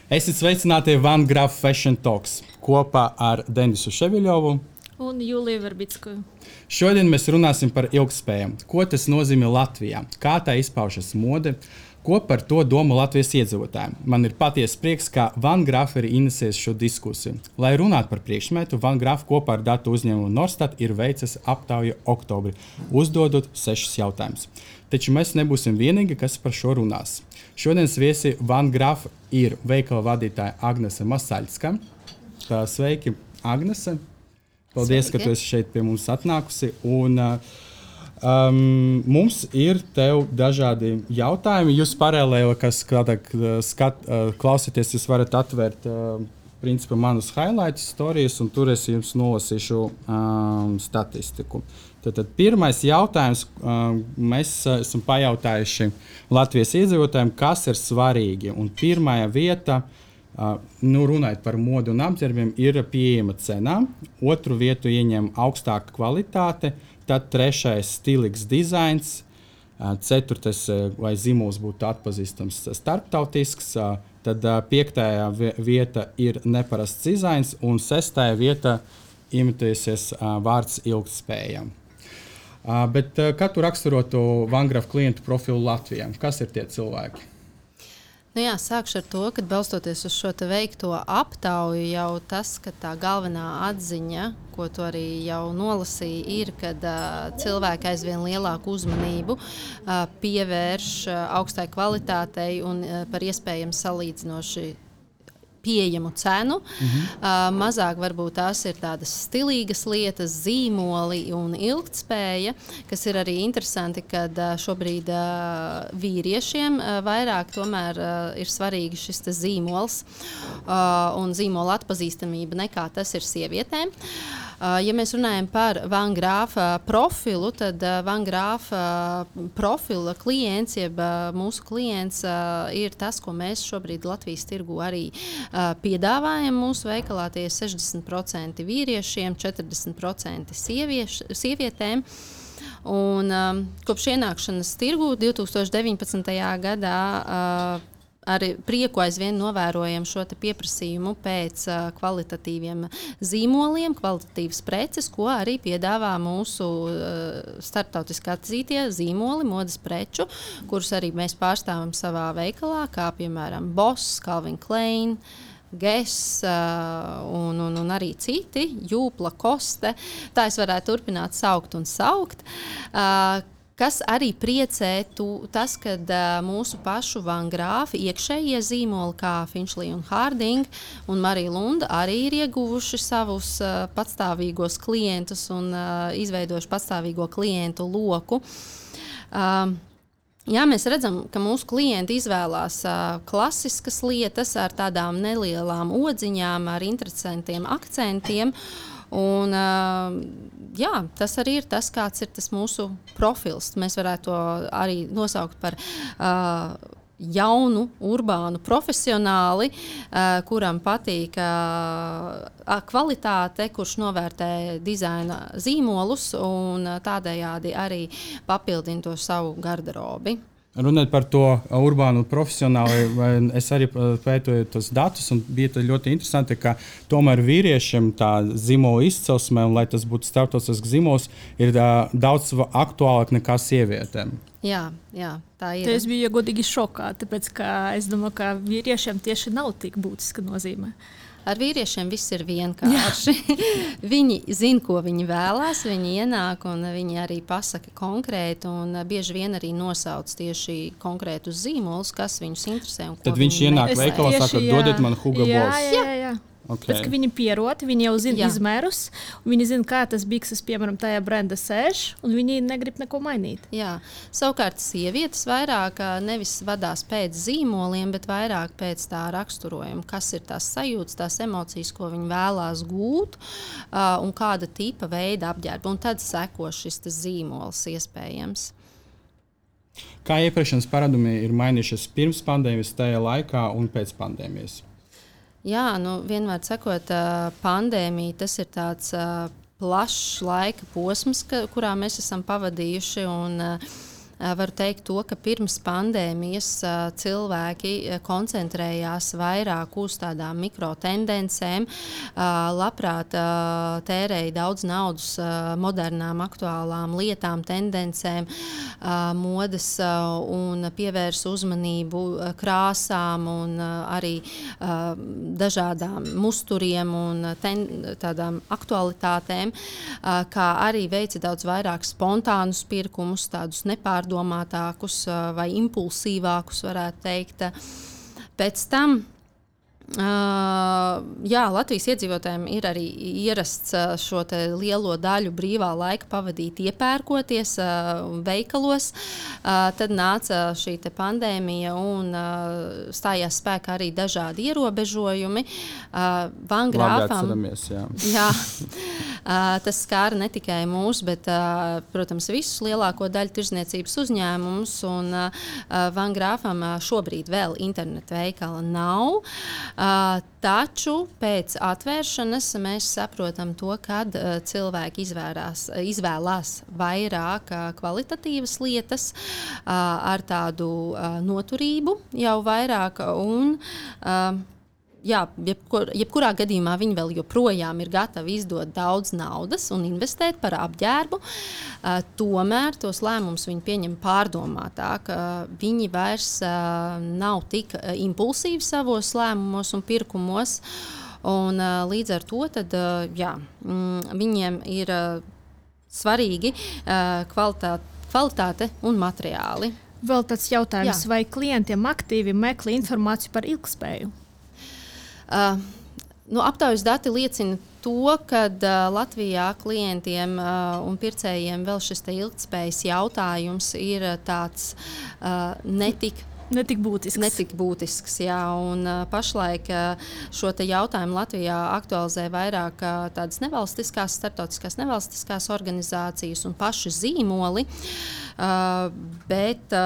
Esiet sveicināti Van Graf Fashion Talks kopā ar Denisu Ševiļovu un Juliju Verbicku. Šodien mēs runāsim par ilgtspēju. Ko tas nozīmē Latvijā? Kā tā izpaužas mode? Ko par to domā Latvijas iedzīvotāji? Man ir patiesa prieks, ka Van Graf ir inesējis šo diskusiju. Lai runātu par priekšmetu, Van Graf kopā ar datu uzņēmumu Norstat ir veicis aptauju oktobrī, uzdodot 6 jautājumus. Taču mēs nebūsim vienīgi, kas par šo runās. Šodienas viesi Van Graf ir veikala vadītāja Agnese Masaļska. Sveiki, Agnese! Paldies, Sveiki. Ka tu esi šeit pie mums atnākusi. Un, mums ir tev dažādi jautājumi. Jūs paralēli, kas klausieties, jūs varat atvērt principā manus highlights storijas, un tur es jums nolasīšu statistiku. Tad pirmais jautājums, mēs esam pajautājuši Latvijas iedzīvotājiem, kas ir svarīgi. Un pirmā vieta, runājot par modu un apģērbiem, ir pieejama cenā. Otru vietu ieņem augstāka kvalitāte, tad trešais stilīgs dizains, ceturtais, lai zīmols būtu atpazīstams starptautisks, tad piektajā vieta ir neparasts dizains, un sestajā vieta imitēsies vārds ilgtspēja. Bet kā tu raksturotu Van Graf klientu profilu Latvijā? Kas ir tie cilvēki? Sākšu ar to, ka balstoties uz šo veikto aptauju, jau tas, ka tā galvenā atziņa, ko tu arī jau nolasīji, ir, kad cilvēki aizvien lielāku uzmanību pievērš augstai kvalitātei un par iespējams salīdzinoši pieejamu cenu. Mazāk varbūt tās ir tādas stilīgas lietas, zīmoli un ilgtspēja, kas ir arī interesanti, kad šobrīd vīriešiem vairāk tomēr ir svarīgi šis zīmols un zīmola atpazīstamība nekā tas ir sievietēm. Ja mēs runājam par Van Graf profilu, tad Van Graf profila klients, jeb mūsu klients, ir tas, ko mēs šobrīd Latvijas tirgu arī piedāvājam mūsu veikalā. Tie ir 60% vīriešiem, 40% sievietēm. Un, kopš ienākšanas tirgu 2019. gadā ar prieku aizvien novērojam šo pieprasījumu pēc kvalitatīviem zīmoliem, kvalitatīvas preces, ko arī piedāvā mūsu starptautiski atzītie zīmoli, modes preču, kurus arī mēs pārstāvam savā veikalā, kā piemēram Boss, Calvin Klein, Guess un arī citi, Jūpla, Koste. Tā es varētu turpināt saukt un saukt. Kas arī priecē tas, kad mūsu pašu Van Graf iekšējie zīmoli, kā Finchley un Harding un Marija Lunda, arī ir ieguvuši savus patstāvīgos klientus un izveidojuši patstāvīgo klientu loku. Mēs redzam, ka mūsu klienti izvēlās klasiskas lietas ar tādām nelielām odziņām, ar interesantiem akcentiem. Un, tas arī ir tas, kāds ir tas mūsu profils. Mēs varētu to arī nosaukt par jaunu, urbānu profesionāli, kuram patīk kvalitāte, kurš novērtē dizaina zīmolus un tādējādi arī papildina to savu garderobi. Runājot par to urbānu profesionāli, es arī pētoju tos datus, un bija ļoti interesanti, ka tomēr vīriešiem tā zīmola izcelsme, un lai tas būtu starptautisks zīmols, ir daudz aktuālāk nekā sievietēm. Jā, tā ir. Es biju godīgi šokā, tāpēc ka es domāju, ka vīriešiem tieši nav tik būtiska nozīme. Ar vīriešiem viss ir vienkārši. Viņi zina, ko viņi vēlās, viņi ienāk un viņi arī pasaka konkrēti un bieži vien arī nosauc tieši konkrētus zīmolus, kas viņus interesē. Tad viņš ienāk veikalā, saka, dodiet man Hugo Boss. Jā. Okay. Pēc, viņi pierod, viņi jau zina izmērus, viņi zina, kā tas bikses, piemēram, tajā brenda sēž, un viņi negrib neko mainīt. Jā. Savukārt sievietes vairāk nevis vadās pēc zīmoliem, bet vairāk pēc tā raksturojuma, kas ir tās sajūtas, tās emocijas, ko viņi vēlās gūt, un kāda tipa veida apģērba. Un tad seko šis zīmols iespējams. Kā iepirkšanas paradumi ir mainījušies pirms pandēmijas, tajā laikā un pēc pandēmijas? Jā, vienmēr sakot, pandēmija tas ir tāds plašs laika posms, kurā mēs esam pavadījuši. Un, varu teikt to, ka pirms pandēmijas cilvēki koncentrējās vairāk uz tādām mikrotendencēm, labprāt tērēja daudz naudas modernām, aktuālām lietām, tendencēm, modes un pievērsa uzmanību krāsām un arī dažādām musturiem un tādām aktualitātēm, kā arī veica daudz vairāk spontānus pirkumus, tādus nepārdomātākus vai impulsīvākus, varētu teikt. Pēc tam Latvijas iedzīvotājiem ir arī ierasts šo lielo daļu brīvā laika pavadīt iepērkoties veikalos. Tad nāca šī pandēmija un stājās spēkā arī dažādi ierobežojumi. Van Grāfam, tas skāra ne tikai mūs, bet, protams, visus lielāko daļu tirdzniecības uzņēmumus. Un Van Grāfam šobrīd vēl internetu veikala nav. Taču pēc atvēršanas mēs saprotam to, kad cilvēki izvēlās vairāk kvalitatīvas lietas ar tādu noturību jau vairāk un jebkurā gadījumā viņi vēl joprojām ir gatavi izdot daudz naudas un investēt par apģērbu. Tomēr tos lēmumus viņi pieņem pārdomātāk. Viņi vairs nav tik impulsīvi savos lēmumos un pirkumos. Un, līdz ar to tad, viņiem ir svarīgi kvalitāte un materiāli. Vēl tāds jautājums, vai klientiem aktīvi meklē informāciju par ilgtspēju? Aptaujas dati liecina to, ka Latvijā klientiem un pircējiem vēl šis ilgtspējas jautājums ir tāds netik būtisks. Jā, un pašlaik šo jautājumu Latvijā aktualizē vairāk tādas starptautiskās nevalstiskās organizācijas un paši zīmoli. Bet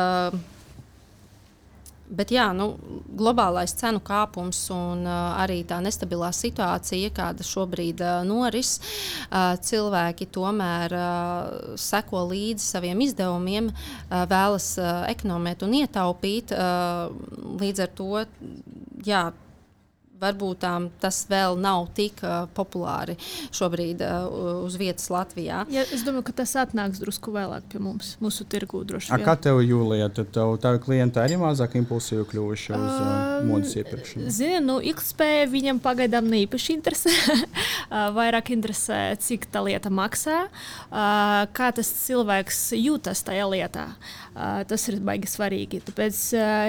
globālais cenu kāpums un arī tā nestabilā situācija, kāda šobrīd noris, cilvēki tomēr seko līdzi saviem izdevumiem, vēlas ekonomēt un ietaupīt. Līdz ar to, varbūt tas vēl nav tik populāri šobrīd uz vietas Latvijā. Ja, es domāju, ka tas atnāks drusku vēlāk pie mums, mūsu tirgū droši vien. Kā tev, Jūlija, tad tavi klienti arī mazāk impulsīvi kļuvuši uz modes iepirkšanu? Zinu, ilgtspēja viņam pagaidām neīpaši interesē. Vairāk interesē, cik tā lieta maksā, kā tas cilvēks jūtas tajā lietā. Tas ir baigi svarīgi. Tāpēc,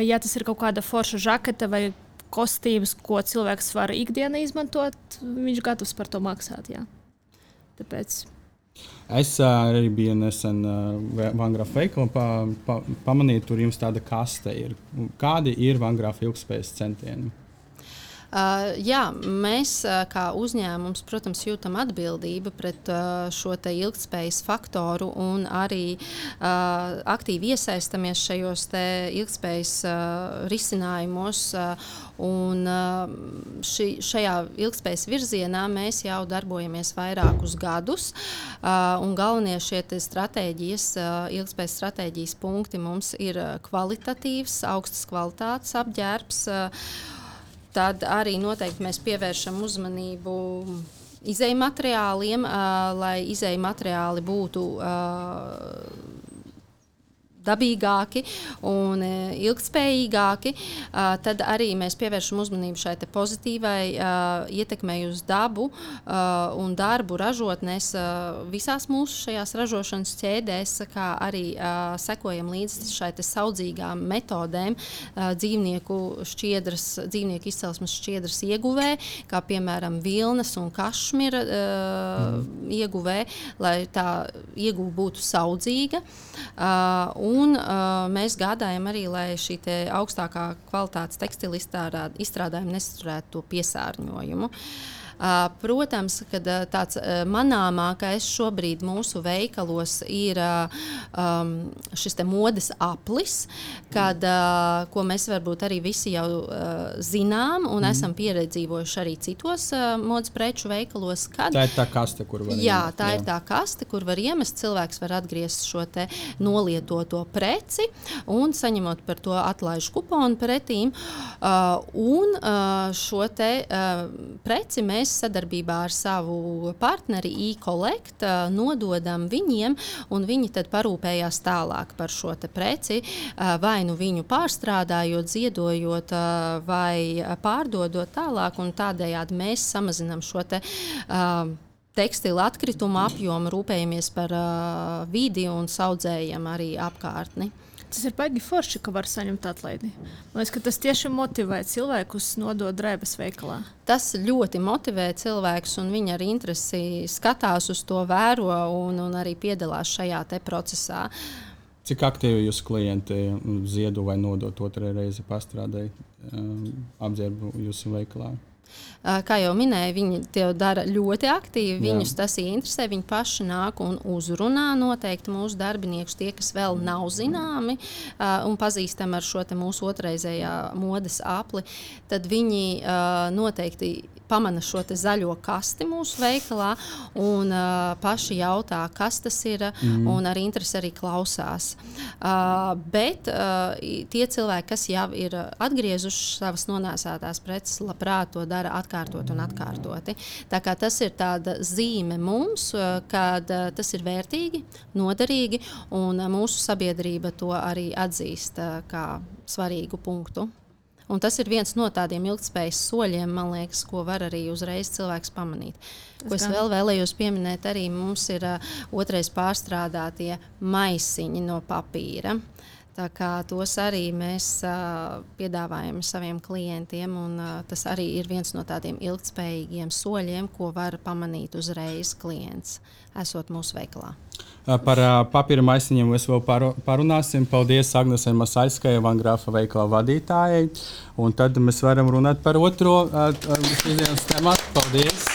ja tas ir kaut kāda forša žaketa vai kostīmus, ko cilvēks var ikdienā izmantot, viņš gatavs par to maksāt. Jā. Tāpēc. Es arī biju nesen Van Grāfa veikalā, pamanīju, tur jums tāda kaste ir. Kādi ir Van Grāfa ilgtspējas centieni? Mēs kā uzņēmums, protams, jūtam atbildību pret šo ilgtspējas faktoru un arī aktīvi iesaistamies šajos ilgtspējas risinājumos. Un šajā ilgtspējas virzienā mēs jau darbojamies vairākus gadus. Un galvenie šie ilgtspējas stratēģijas punkti mums ir kvalitatīvs, augstas kvalitātes apģērbs. Tad arī noteikti mēs pievēršam uzmanību izejmateriāliem, lai izejmateriāli būtu dabīgāki un ilgtspējīgāki. Tad arī mēs pievēršam uzmanību šai pozitīvai ietekmei uz dabu un darbu ražotnēs visās mūsu šajās ražošanas ķēdēs, kā arī sekojam līdzi šai saudzīgām metodēm dzīvnieku izcelsmes šķiedras ieguvē, kā piemēram vilnas un kašmira ieguvē, lai tā ieguve būtu saudzīga. Un mēs gādājam arī, lai šī augstākā kvalitātes tekstila izstrādājuma nesaturētu to piesārņojumu. Protams, kad tāds manāmākais šobrīd mūsu veikalos ir šis te modes aplis, ko mēs varbūt arī visi jau zinām un esam pieredzīvojuši arī citos modes preču veikalos. Tā ir tā kaste, kur var iemest. Tā ir tā kaste, kur var iemest. Cilvēks var atgriezt šo te nolietoto preci un saņemot par to atlaižu kuponu pretīm. Un šo te preci mēs sadarbībā ar savu partneri e-Collect nododam viņiem, un viņi tad parūpējās tālāk par šo te preci, vai nu viņu pārstrādājot, ziedojot vai pārdodot tālāk, un tādējādi mēs samazinām šo te tekstila atkritumu apjomu, rūpējamies par vidi un saudzējam arī apkārtni. Tas ir baigi forši, ka var saņemt atlaidi. Man liekas, ka tas tieši motivē cilvēkus nodot drēbes veikalā. Tas ļoti motivē cilvēkus, un viņi ar interesi skatās uz to, vēro un arī piedalās šajā te procesā. Cik aktīvi jūs klienti ziedo vai nodot otrai reizi pastrādai apģērbu jūsu veikalā? Kā jau minēju, viņi to dara ļoti aktīvi. Viņus tas interesē. Viņi paši nāk un uzrunā noteikti mūsu darbiniekus, tie, kas vēl nav zināmi un pazīstami ar šo te mūsu otrreizējā modes apli. Tad viņi noteikti pamana šo te zaļo kasti mūsu veikalā un paši jautā, kas tas ir, un ar interesi arī klausās. Bet tie cilvēki, kas jau ir atgriezuši savas nonēsātās preces, labprāt to dara atkārtot un atkārtoti. Tā kā tas ir tāda zīme mums, kad tas ir vērtīgi, noderīgi, un mūsu sabiedrība to arī atzīst kā svarīgu punktu. Un tas ir viens no tādiem ilgtspējas soļiem, man liekas, ko var arī uzreiz cilvēks pamanīt. Ko es vēl vēlējos pieminēt, arī mums ir otrais pārstrādātie maisiņi no papīra. Tā kā tos arī mēs piedāvājam saviem klientiem, un tas arī ir viens no tādiem ilgtspējīgiem soļiem, ko var pamanīt uzreiz klients, esot mūsu veikalā. Par papīra maisiņiem mēs vēl parunāsim. Paldies Agnesei Masaļskai, Van Grafa veikala vadītājai. Un tad mēs varam runāt par otro šodienas tematu. Paldies!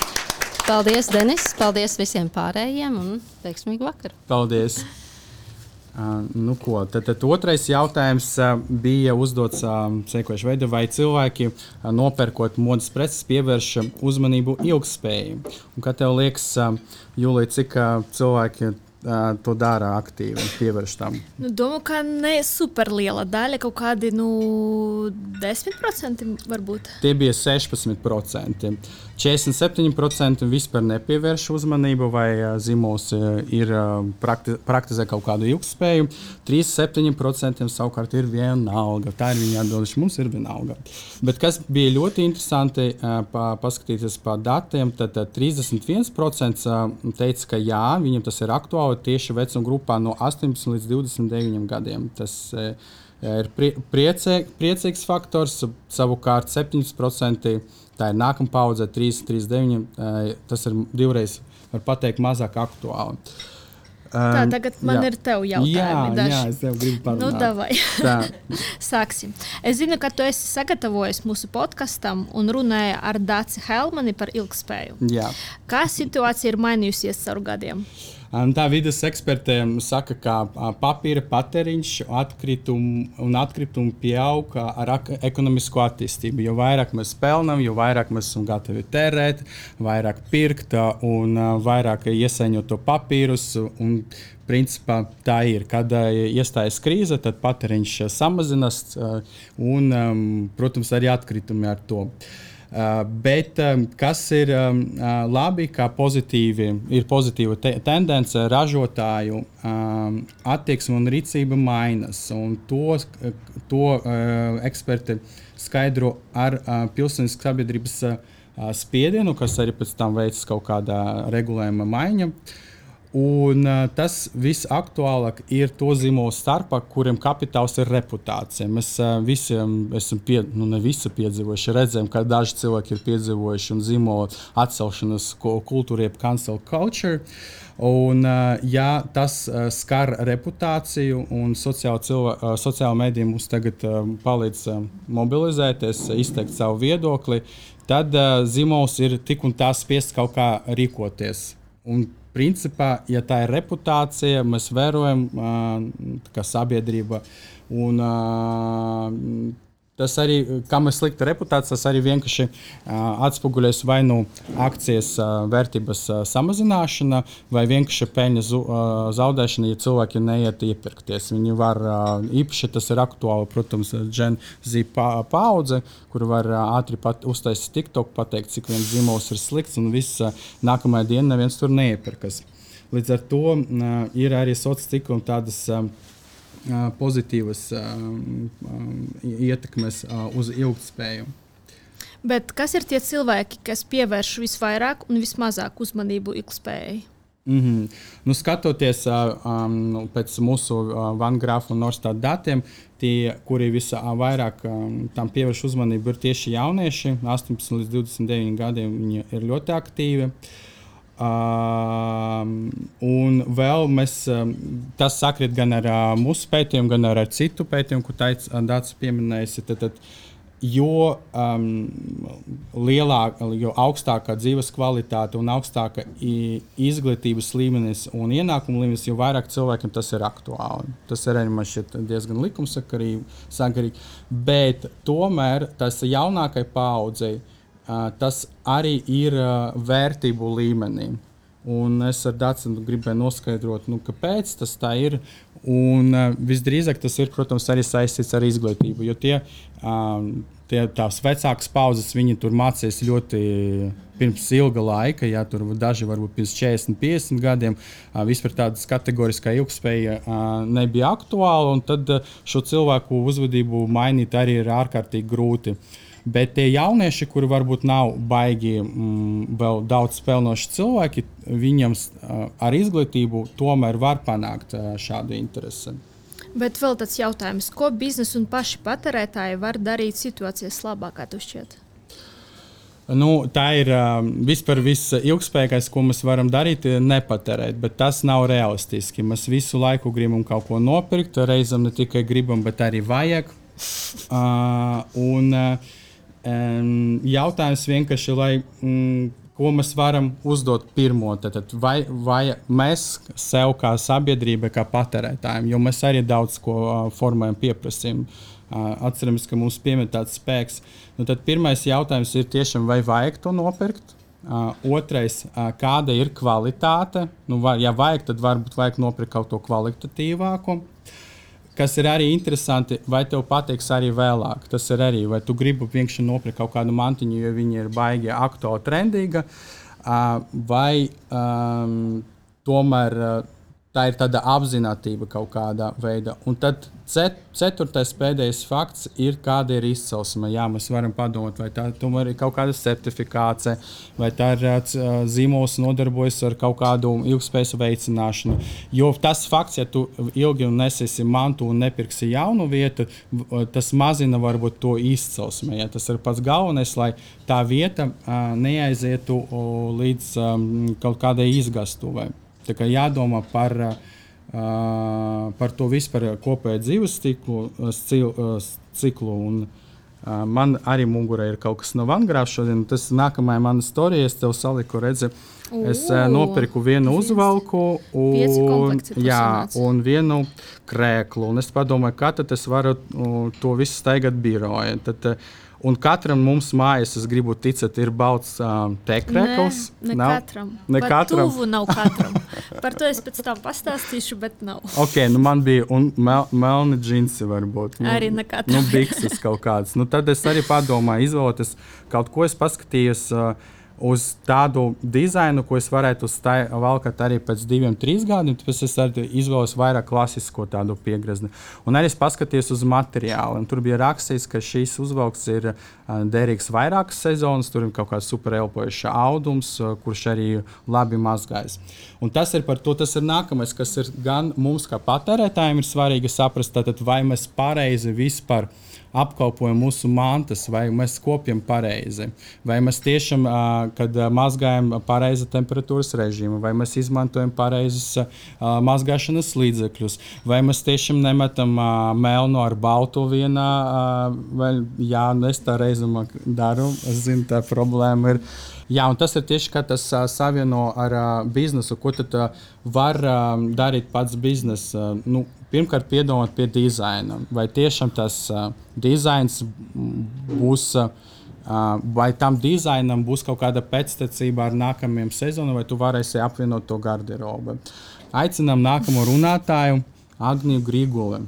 Paldies, Denis! Paldies visiem pārējiem un veiksmīgu vakaru! Paldies! Tad otrais jautājums bija uzdots sekojuši veidā, vai cilvēki nopērkot modes preces pievērš uzmanību ilgtspējai. Un kā tev liekas, Jūlija, cik cilvēki to dara aktīvi un pievērš tam? Domāju, ka ne super liela daļa, kaut kādi 10% varbūt. Tie bija 16%. 47% vispār nepievērš uzmanību vai zīmols ir praktizē kaut kādu ilgtspēju. 37% savukārt ir vienalga. Tā ir viņa atbilde, mums ir vienalga. Bet kas bija ļoti interesanti paskatīties pa datiem, tad 31% teica, ka jā, viņam tas ir aktuāli tieši vecuma grupā no 18 līdz 29 gadiem. Tas ir priecīgs faktors, savukārt 7% tā ir nākamā paudze, 3,39. Tas ir divreiz, var pateikt, mazāk aktuāli. Tā, tagad man ir tev jautājumi. Jā, es tev gribu parunāt. Davai. Sāksim. Es zinu, ka tu esi sagatavojis mūsu podkastam un runāji ar Daci Helmani par ilgtspēju. Jā. Kā situācija ir mainījusies caur gadiem? Tā vides ekspertiem saka, ka papīra patēriņš atkritumu pieaug ar ekonomisko attīstību. Jo vairāk mēs pelnām, jo vairāk mēs esam gatavi tērēt, vairāk pirkt un vairāk iesaņot to papīrus. Un, principā, tā ir. Kad iestājas krīze, tad patēriņš samazinās un, protams, arī atkritumi ar to. Bet kas ir labi, ka ir pozitīva tendence, ražotāju attieksme un rīcība mainas. Un to eksperti skaidro ar pilsētiskas sabiedrības spiedienu, kas arī pēc tam veids kaut kādā regulējuma maiņa. Un tas visaktuālāk ir to zīmolu starpā, kuriem kapitāls ir reputācija. Mēs visiem esam ne visi piedzīvojuši, redzējām, ka daži cilvēki ir piedzīvojuši un zīmolu atcelšanas kultūru, jeb cancel culture. Un, ja tas skar reputāciju un sociāla medija mums tagad palīdz mobilizēties, izteikt savu viedokli, tad zīmols ir tik un tā spiests kaut kā rīkoties. Un principā, ja tā ir reputācija, mēs vērojam kā sabiedrība. Un, tas arī, kā mēs slikta reputācija, tas arī vienkārši atspoguļojas vai nu akcijas vērtības samazināšana, vai vienkārši peļņas zaudēšana, ja cilvēki neiet iepirkties. Viņi var, īpaši tas ir aktuāli, protams, Gen Z paudze, kur var ātri uztaisīt TikTok, pateikt, cik viens zīmols ir slikts, un viss nākamajā dienā neviens tur neiepirkas. Līdz ar to ir arī sociālā cikla un tādas pozitīvas ietekmes uz ilgtspēju. Bet kas ir tie cilvēki, kas pievērš visvairāk un vismazāk uzmanību ilgtspējai? Nu, skatoties pēc mūsu Vangrāfa un Norstat datiem, tie, kuri visvairāk tam pievērš uzmanību, ir tieši jaunieši. 18 līdz 29 gadiem viņi ir ļoti aktīvi. Un vēl tas sakrīt gan ar mūsu pētījumu, gan ar citu pētījumu, ko Dācis pieminējusi. Jo augstākā dzīves kvalitāte un augstāka izglītības līmenis un ienākuma līmenis, jo vairāk cilvēkiem tas ir aktuāli. Tas ir arī man šķiet diezgan likumsakarīgi, bet tomēr tas jaunākai paaudzei tas arī ir vērtību līmenī. Un es ar Dāci gribēju noskaidrot, kāpēc tas tā ir. Un visdrīzāk tas ir, protams, arī saistīts ar izglītību, jo tās vecākas paudzes, viņi tur mācījās ļoti pirms ilga laika, ja tur daži varbūt pirms 40, 50 gadiem, vispār tādas kategoriskā ilgspēja nebija aktuāla, un tad šo cilvēku uzvedību mainīt arī ir ārkārtīgi grūti. Bet tie jaunieši, kuri varbūt nav baigi vēl daudz spēlnoši cilvēki, viņam ar izglītību tomēr var panākt šādu interesi. Bet vēl tāds jautājums, ko biznesa un paši patērētāji var darīt situācijas labāk, kā tu šķiet? Tā ir vispār ilgspējīgais, ko mēs varam darīt, nepatērēt, bet tas nav realistiski. Mēs visu laiku gribam kaut ko nopirkt, reizēm ne tikai gribam, bet arī vajag. Jautājums vienkārši, ko mēs varam uzdot pirmo, vai mēs sev kā sabiedrība, kā patērētājiem, jo mēs arī daudz ko formējam, pieprasījam. Atceramies, ka mums piemēr tāds spēks. Tad pirmais jautājums ir tiešām, vai vajag to nopirkt. Otrais, kāda ir kvalitāte. Ja vajag, tad varbūt vajag nopirkt kaut ko kvalitatīvāku. Kas ir arī interesanti, vai tev patiks arī vēlāk. Tas ir arī, vai tu gribi vienkārši nopirkt kaut kādu mantiņu, jo viņa ir baigi aktuāli trendīga, vai tomēr tā ir tāda apzinātība kaut kādā veidā. Un tad ceturtais pēdējais fakts ir, kāda ir izcelsme. Jā, mēs varam padomāt, vai tā tomēr ir kaut kāda certifikācija, vai tā ir zīmols nodarbojas ar kaut kādu ilgspējas veicināšanu. Jo tas fakts, ja tu ilgi nesēsi mantu un nepirksi jaunu vietu, tas mazina varbūt to izcelsme. Ja? Tas ir pats galvenais, lai tā vieta neaizietu līdz kaut kādai izgastuvai. Tā kā jādomā par to vispār kopēju dzīves ciklu. Un, man arī mugurā ir kaut kas no Vangrāfa šodien. Tas nākamajā mana storija, es tev saliku, redzi, es nopirku vienu uzvalku un vienu krēklu. Un es padomāju, kā tad es varu to visu staigāt biroja. Un katram mums mājās, es gribu ticēt, ir balts tekrēkls. Ne katram. Tuvu nav katram. Par to es pēc tam pastāstīšu, bet nav. Ok, man bija melni džinsi varbūt. Arī ne katram. Bikses kaut kādas. Tad es arī padomāju, izvēloties kaut ko, es paskatījos, uz tādu dizainu, ko es varētu valkāt arī pēc 2-3 gadiem, tāpēc es arī izvēlos vairāk klasisko tādu piegrezni. Un arī es paskatījos uz materiālu. Tur bija rakstīts, ka šīs uzvalks ir derīgs vairākas sezonas, tur ir kaut kāds super elpojušs audums, kurš arī labi mazgājas. Un tas ir par to, tas ir nākamais, kas ir gan mums kā patērētājiem ir svarīgi saprast, tātad, vai mēs pareizi vispār apkalpojam mūsu mantas, vai mēs kopjam pareizi, vai mēs tiešām, kad mazgājam pareizi temperatūras režīmu, vai mēs izmantojam pareizes mazgāšanas līdzekļus, vai mēs tiešām nemetam melnu ar baltu vienā, vai jā, es tā reizumā daru, es zinu, tā problēma ir. Jā, un tas ir tieši, kā tas savieno ar biznesu, ko tad var darīt pats biznes. Pirmkārt, piedomāt pie dizaina. Vai tiešām tas dizains būs, vai tam dizainam būs kaut kāda pēctecība ar nākamajiem sezonam, vai tu varēsi apvienot to garderobu. Aicinām nākamo runātāju, Agniju Griguli.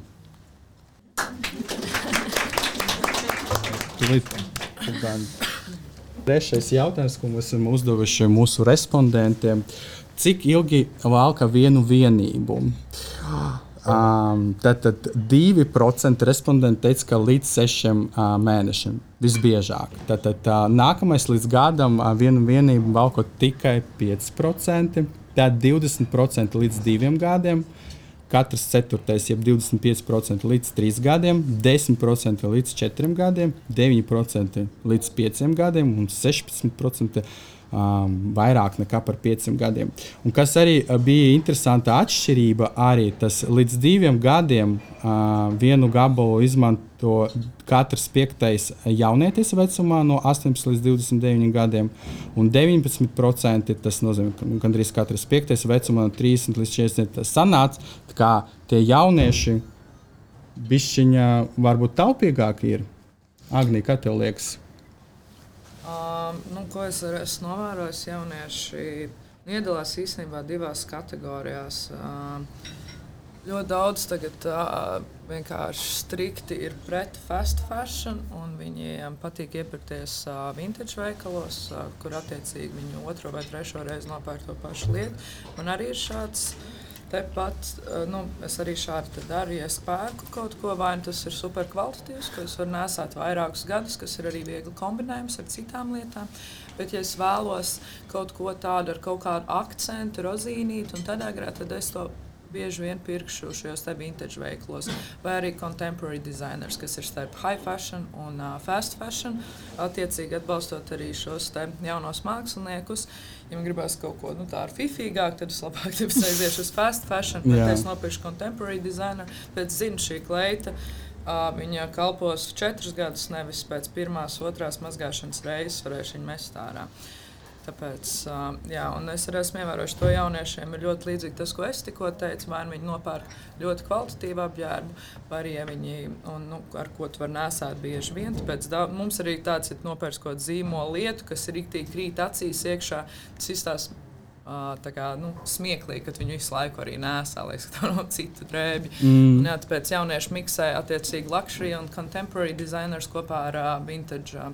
Trešais jautājums, ko mēs esam uzdevuši mūsu respondentiem. Cik ilgi valka vienu vienību? Tātad 2% respondenti teica, ka līdz 6 mēnešiem visbiežāk. Tātad nākamais līdz gadam vienu vienību valkot tikai 5%, tad 20% līdz 2 gadiem, katrs ceturtais, jeb 25% līdz 3 gadiem, 10% līdz 4 gadiem, 9% līdz 5 gadiem un 16% vairāk nekā par 5 gadiem. Un kas arī bija interesanta atšķirība, arī tas līdz 2 gadiem vienu gabalu izmanto katrs 5. jaunietis vecumā no 18 līdz 29 gadiem, un 19% tas nozīmē, ka gandrīz katrs 5. vecumā no 30 līdz 40. Tas sanāca, kā tie jaunieši bišķiņa varbūt taupīgāki ir. Agnija, kā tev liekas? Ko es esmu novērojis, jaunieši iedalās īstenībā 2 kategorijās. Ļoti daudz tagad vienkārši strikti ir pret fast fashion, un viņiem patīk iepirkties vintage veikalos, kur attiecīgi viņi 2. vai 3. reizi nopērk to pašu lietu. Man arī ir šāds tepat, es arī šādi daru, ja es pērku kaut ko, vai tas ir super kvalitatīvs, ko es varu nesāt vairākus gadus, kas ir arī viegli kombinējums ar citām lietām. Bet, ja es vēlos kaut ko tādu ar kaut kādu akcentu, rozīnīti un tādā garā, tad es to bieži vien pirkšu šajos te vintage veiklos, vai arī contemporary designers, kas ir starp high fashion un fast fashion, attiecīgi atbalstot arī šos te jaunos māksliniekus. Ja man gribās kaut ko tādu fifīgāku, tad es labāk aiziešu uz fast fashion, bet es nopirkšu contemporary designer, bet zinu, šī kleita, viņa kalpos 4 gadus, nevis pēc 1., 2. mazgāšanas reizes varēšu viņu mest ārā. Tāpēc, un es arī esmu ievērojuši to jauniešiem, ir ļoti līdzīgi tas, ko es tikko teicu, vai viņi nopērk ļoti kvalitatīvu apģērbu, vai arī viņi, ar ko tu var nesāt bieži vien. Tāpēc mums arī tāds ir nopērks kaut zīmola lietu, kas ir riktīgi krīt acīs iekšā, tas izstās smieklīgi, kad viņu visu laiku arī nesā, lai tā nav citu drēbju. Tāpēc jaunieši miksē attiecīgi luxury un contemporary designers kopā ar vintage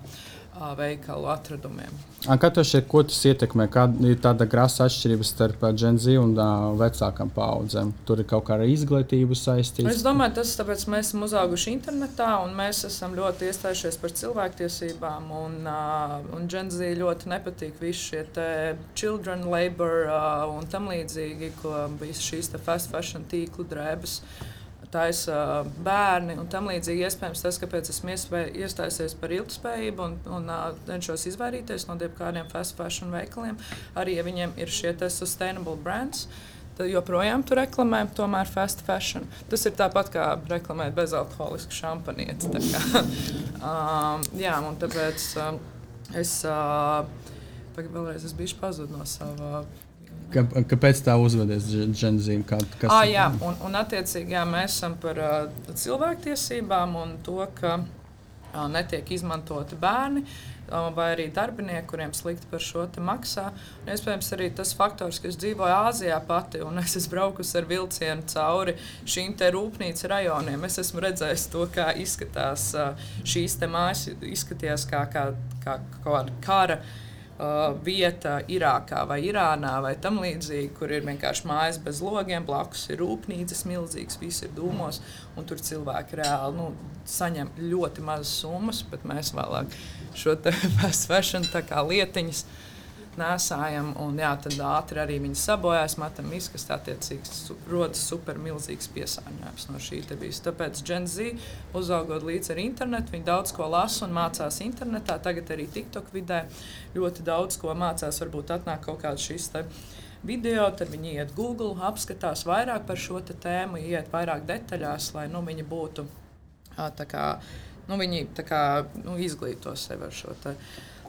veikalu atradumiem. Kā tev šķiet, ko tas ietekmē? Kāda ir tāda grasa atšķirība starp Gen Z un vecākām paudzēm? Tur ir kaut kā ar izglītību saistīts? Es domāju, tas tāpēc mēs esam uzauguši internetā un mēs esam ļoti iestājušies par cilvēktiesībām un Gen Z ļoti nepatīk visi šie te children labor un tam līdzīgi, ko bija šīs te fast fashion tīklu drēbes taisa bērni un tam līdzīgi. Iespējams tas, kāpēc esmu iestājusies par ilgtspējību un cenšos izvairīties no kādiem fast fashion veikaliem, arī ja viņiem ir šie te sustainable brands, tad joprojām tu reklamē tomēr fast fashion. Tas ir tāpat kā reklamēt bezalkoholisku šampanieti. Un tāpēc es vēlreiz biju pazudis no sava. Kāpēc tā uzvedies Gen Z? Un attiecīgi mēs esam par cilvēktiesībām un to, ka netiek izmantoti bērni vai arī darbinieki, kuriem slikti par šo te maksā. Un, iespējams, arī tas faktors, ka es dzīvoju Āzijā pati un es esmu braukusi ar vilcienu cauri šīm te rūpnīcu rajoniem. Es esmu redzējis to, kā izskatās šīs te mājas, izskatījās kā kara vieta Irākā vai Irānā vai tam līdzīgi, kur ir vienkārši mājas bez logiem, blakus ir rūpnīcas milzīgas, viss ir dūmos, un tur cilvēki reāli saņem ļoti mazas summas, bet mēs vēlāk šo te fast fashion tā kā lietiņas nesājam, un jā, tad ātri arī viņi sabojās, metam izkast, attiecīgs rodas super milzīgs piesārņojums no šī te bijis. Tāpēc Gen Z, uzaugot līdz ar internetu, viņi daudz ko lasa un mācās internetā, tagad arī TikTok vidē ļoti daudz ko mācās, varbūt atnāk kaut kāds šis te video, tad viņi iet Google, apskatās vairāk par šo te tēmu, iet vairāk detaļās, lai viņi būtu tā kā, viņi tā kā izglīto sevi ar šo te,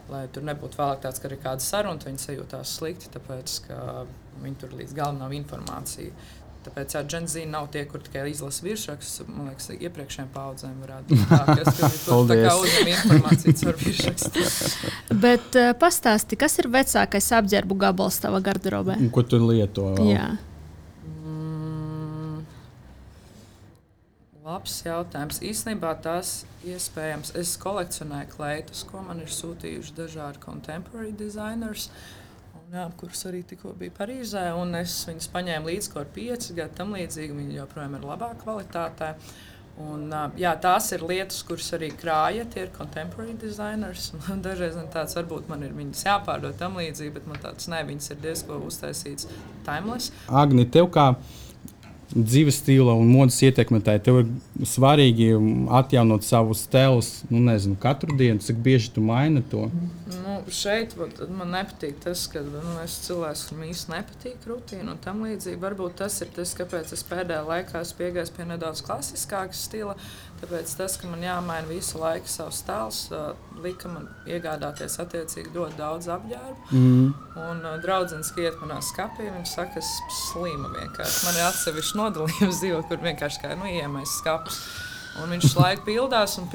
lai tur nebūtu vēlāk tāds, ka ir kāda saruna, viņi sajūtās slikti, tāpēc, ka viņi tur līdz galam nav informācija. Tāpēc Gen Z nav tie, kur tikai izlasa virsrakstus, man liekas, iepriekšējiem paudzēm varētu būt tā, kas tur tā kā uzņem informāciju caur virsrakstu. Bet pastāsti, kas ir vecākais apģērbu gabals tava garderobē? Un ko tu lieto vēl? Jā. Labs jautājums. Īstenībā tas iespējams. Es kolekcionēju kleitus, ko man ir sūtījuši dažādi contemporary designers, kurus arī tikko bija Parīzē. Un es viņus paņēmu līdz kaut 5 gadu tam līdzīgi. Viņi joprojām ir labā kvalitātē. Un, jā, tās ir lietas, kuras arī krāja, tie ir contemporary designers. Dažreiz tāds varbūt man ir viņas jāpārdod tam līdzīgi, bet man tāds ne, viņas ir diezko uztaisīts timeless. Agni, tev kā dzīves stila un modes ietekmētāji, tev ir svarīgi atjaunot savus stilus, nezinu, katru dienu, cik bieži tu maini to? Šeit man nepatīk tas, ka es cilvēks, kam īsti nepatīk rutīna un tam līdzīgi. Varbūt tas ir tas, kāpēc es pēdējā laikā piegāju pie nedaudz klasiskāka stila, tāpēc tas, ka man jāmaina visu laiku savs stils, lika man iegādāties attiecīgi ļoti daudz apģērbu. Un draudzens iet manā skapī, viņš saka, es slima vienkārši. Man ir atsevišķi nodalījums dzīvo, kur vienkārši kā iemais skapus. Un viņš laiku pildās, un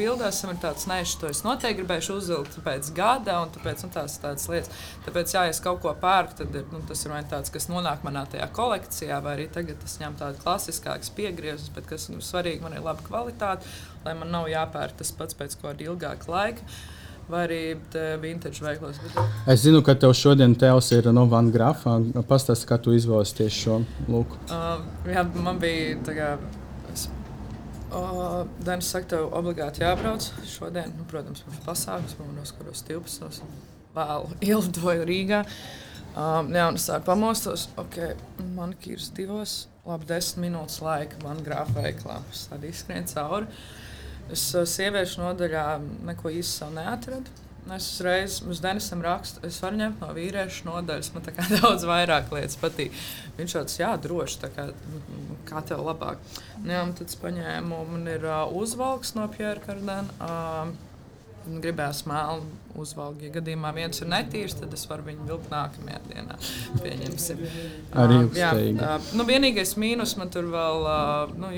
ir tāds, nē, to es noteikti gribēšu uzvilkt pēc gada, un tāpēc tādas lietas. Tāpēc, ja es kaut ko pērku, tad tas ir vai tāds, kas nonāk manā tajā kolekcijā, vai arī tagad es ņemu tādu klasiskākas piegriezus, bet kas svarīgi, man ir laba kvalitāte, lai man nav jāpērk tas pats pēc kāda ilgāka laika. Vai arī vintage veiklos. Es zinu, ka tev šodien tevs ir no Van Grafa. Pastāsti, kā tu izvēlies tieši šo lūku. Jā, man bija tā kā... Danis saka, tev obligāti jābrauc šodien. Protams, mums pasākums, man noskaros 12. Vēl ielidoju Rīgā. Jā, un es tā pamostos. Manikīrs 2, labi 10 minūtes laika Van Grafa veiklā. Es tādi izskrien cauri. Es sieviešu nodaļā neko īsti savu neatradu. Es uzreiz uz Denisam rakstu, es varu ņemt no vīriešu nodaļas, man tā kā daudz vairāk lietas patīk. Viņš tāds, jā, droši, tā kā tev labāk. Jā, un tad es paņēmu, man ir uzvalks no Pierre Cardin. Gribēju melnu uzvalgu. Ja gadījumā viens ir netīrs, tad es varu viņu vilkt nākamajā dienā. Pieņemsim. Arī ilgstīgi. Vienīgais mīnus man tur vēl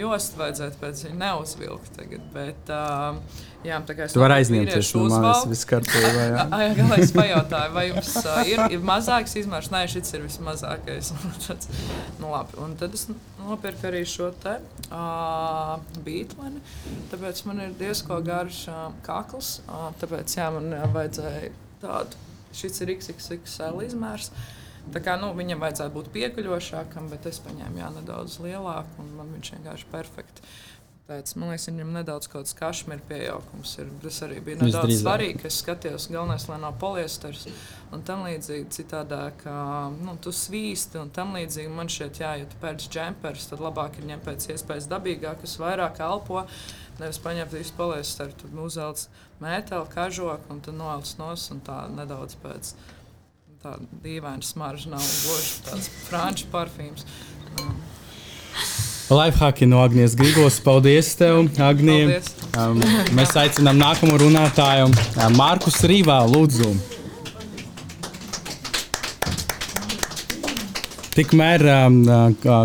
jostu vajadzētu pēc viņa neuzvilkt tagad, bet jā, tā kā es tu vari aizņemties no manis viss kārtībā, jā. Galā es pajautāju, vai jums ir mazāks izmērs? Nē, šis ir vismazākais. Labi, un tad es nopirku arī šo te bītleni, tāpēc man ir diezko garš kakls, tāpēc jā, man vajadzēja tādu, šis ir XXXL izmērs, tā kā, viņam vajadzētu būt piekuļošākam, bet es paņēmu nedaudz lielāku, un man viņš vienkārši perfekti. Pēc, man liekas, viņam nedaudz kaut kāds kašmira piejaukums ir. Tas arī bija nedaudz svarīgi, ka es skatījos, galvenais, lai nav poliesters un tam līdzīgi citādāk, tu svīsti un tam līdzīgi. Man šķiet, jā, ja tu pērci džempers, tad labāk ir ņemt pēc iespējas dabīgāk, kas vairāk elpo, nevis paņemt visu poliesteru, tad uzvelc mēteli, kažoku un tad novelc nos un tā nedaudz pēc tā dīvaina smarža nav gluži tāds franču parfīms. Lifehacki no Agnijas Grigos. Paldies tev, Agnija. Mēs aicinām nākamo runātāju, Markus Rīvā, lūdzu. Tikmēr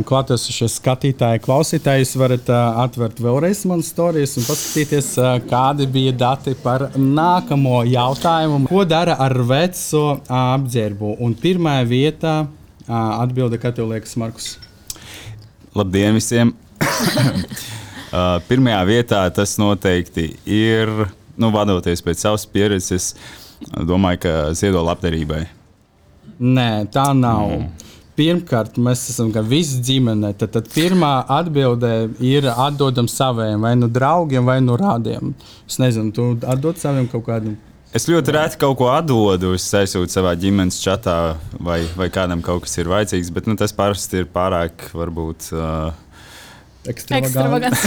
klātesošie skatītāji, klausītāji, jūs varat atvērt vēlreiz manas storijas un paskatīties, kādi bija dati par nākamo jautājumu. Ko dara ar veco apģērbu? Un pirmā vietā atbilde, kā tev liekas, Markus? Labdien visiem! Pirmajā vietā tas noteikti ir, vadoties pēc savas pieredzes, domāju, ka ziedo labdarībai. Nē, tā nav. Pirmkārt, mēs esam visi ģimene. Tad pirmā atbilde ir atdodam saviem, vai nu draugiem, vai nu rādiem. Es nezinu, tu atdod saviem kaut kādu. Es ļoti reti kaut ko atdodu, es aizsūtu savā ģimenes čatā, vai kādam kaut kas ir vajadzīgs, bet tas parasti ir pārāk, varbūt... Ekstravagants.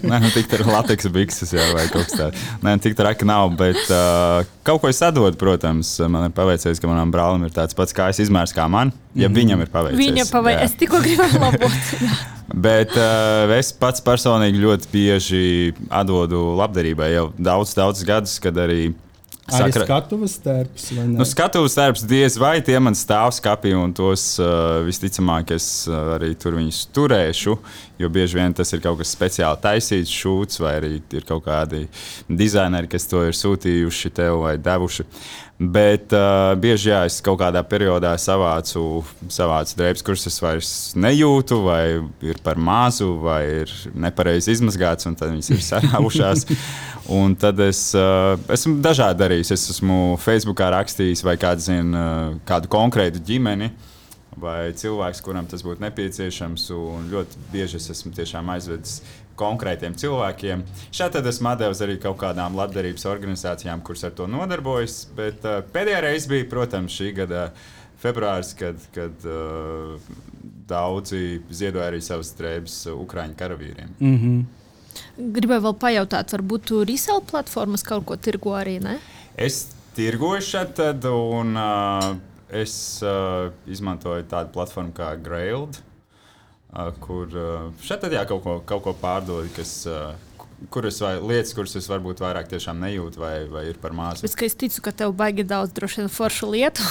Nē, tik tā ir lateksa bikses, jā, vai kaut kas tāds. Nē, tik tā raka nav, bet kaut ko es atdodu, protams. Man ir paveicies, ka manam brālim ir tāds pats kājas izmērs kā man, ja viņam ir paveicies. Es tikko gribēju labot. Bet es pats personīgi ļoti bieži atdodu labdarībai jau daudz gadus, kad arī Arī skatuves tērps, vai ne? Skatuves tērps diez vai tie man stāv skapī, un tos visticamāk es arī tur viņus turēšu, jo bieži vien tas ir kaut kas speciāli taisīts šūts, vai arī ir kaut kādi dizaineri, kas to ir sūtījuši tev vai devuši. Bet bieži es kaut kādā periodā savācu drēbes, kuras es vairs nejūtu, vai ir par mazu, vai ir nepareizi izmazgāts, un tad viņas ir sarāvušās. Un tad es esmu dažādi darījis. Es esmu Facebookā rakstījis vai kādu konkrētu ģimeni vai cilvēks, kuram tas būtu nepieciešams. Un ļoti bieži es esmu tiešām aizvedis konkrētiem cilvēkiem. Šādi tad esmu devis arī kaut kādām labdarības organizācijām, kuras ar to nodarbojas. Bet pēdējā reize bija, protams, šī gada februāris, kad daudzi ziedoja arī savas drēbes Ukraiņu karavīriem. Gribēju vēl pajautāt, varbūt tu resell platformas kaut ko tirgo arī, ne? Es tirgoju šeit, un es izmantoju tādu platformu kā Grailed, kur šeit kaut ko pārdod, lietas, kuras es varbūt vairāk tiešām nejūtu vai ir par mazu. Es ticu, ka tev baigi daudz droši vien foršu lietu.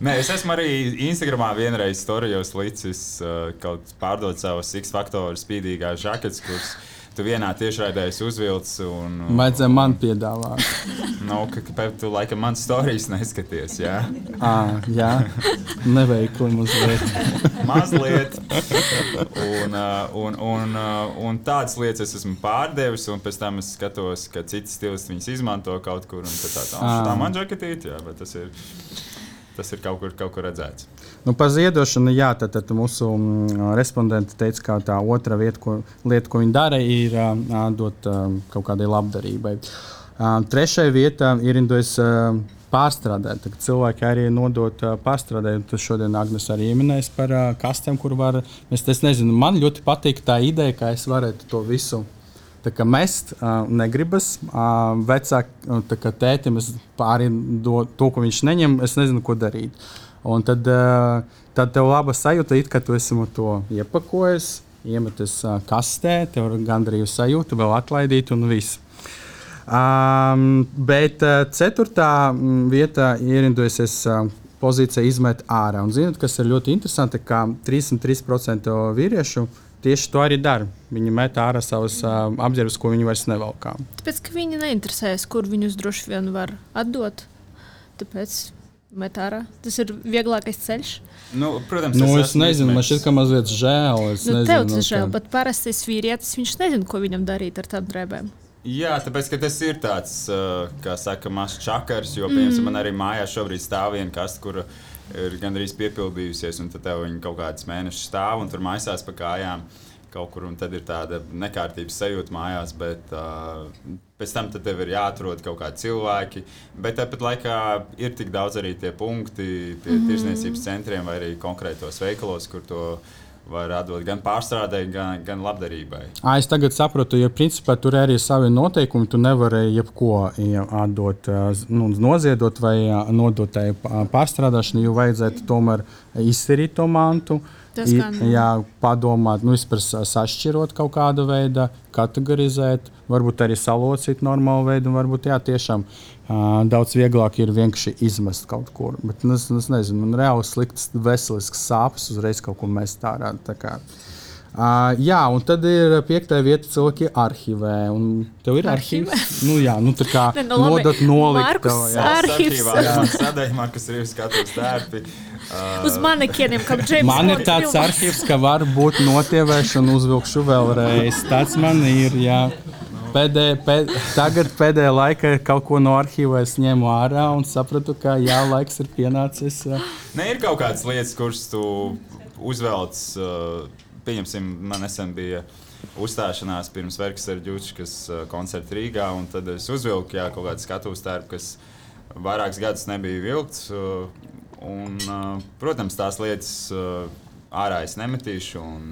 Nē, es esmu arī Instagramā vienreiz storijos licis kaut pārdot savas X-faktoru spīdīgās žaketes, kuras tu vienā tiešraidēs uzvilc. Vajadzēja man piedāvāt. Kāpēc tu laikam man storijas neskaties, jā? Jā, neveikli mazliet. Mazliet. Un tādas lietas es esmu pārdevis, un pēc tam es skatos, ka citi stilisti viņas izmanto kaut kur, un tā man žaketīt, jā, bet tas ir kaut kur redzēts. Par ziedošanu, jā, tad mūsu respondenti teica, ka tā otra lieta, ko viņi dara, ir dot kaut kādai labdarībai. Trešā vieta ir pārstrādāt. Tad cilvēki arī nodot pārstrādē. Tas šodien Agnes arī ieminēs par kastēm, kur var. Es nezinu, man ļoti patīk tā ideja, ka es varētu to visu mest, negribas. Vecāki tētim es arī to, ko viņš neņem, es nezinu, ko darīt. Un tad tev laba sajūta, ka tu esi to iepakojis, iemetis kastē, tev ir gandrīz sajūta, vēl atlaidīt un viss. Bet ceturtā vieta ierindojusies pozīcija izmet ārā. Un zināt, kas ir ļoti interesanti, ka 33% vīriešu tieši to arī dara. Viņi met ārā savas apģērbus, ko viņi vairs nevalkā. Tāpēc, ka viņi neinteresējas, kur viņus droši vien var atdot. Tāpēc met ārā. Tas ir vieglākais ceļš. Protams, es nezinu, man šķiet, ka mazliet žēl. Tev tas žēl, bet parastais vīrietis, viņš nezina, ko viņam darīt ar tām drēbēm. Jā, tāpēc, ka tas ir tāds, kā saka, mazs čakars, jo, piemēram, man arī mājās šobrīd stāv viena kaste, kura ir gandrīz piepildījusies, un tad tev viņa kaut kāds mēnešus stāv, un tur maisās pa kājām kaut kur, un tad ir tāda nekārtības sajūta mājās, bet pēc tam tev ir jāatrod kaut kādi cilvēki, bet tāpat laikā ir tik daudz arī tie punkti pie tirzniecības centriem vai arī konkrētos veikalos, kur to var atdot gan pārstrādē, gan labdarībai. Es tagad saprotu, jo principā tur arī ir savi noteikumi, tu nevari jebko atdot, noziedot vai nodot tai pārstrādāšanu, jo vajadzētu tomēr izsirīt to mantu. Padomāt, vispār sašķirot kaut kādu veidu, kategorizēt, varbūt arī salocīt normālu veidu, un varbūt tiešām daudz vieglāk ir vienkārši izmest kaut kur. Bet es nezinu, man reāli sliktas veseliskas sāpes uzreiz kaut ko mest ārā. Un tad ir 5. vieta cilvēki arhīvē. Tev ir arhīvs? Tā kā nodot nolikt. Markus ir skatos tērpi. Uz manekieniem, kā James Bond. Man ir tāds arhīvs, ka var būt notievēšana, uzvilkšu vēlreiz. Tāds man ir, jā. Tagad pēdējā laikā kaut ko no arhīva es ņēmu ārā un sapratu, ka laiks ir pienācis. Ne, ir kaut kādas lietas, kuras tu uzvelc, pieņemsim, man nesen bija uzstāšanās pirms Verkas ar Ģučkas koncertu Rīgā, un tad es uzvilku kaut kādu skatuves tērpu, kas vairākus gadus nebija vilkts. Protams, tās lietas ārā es nemetīšu un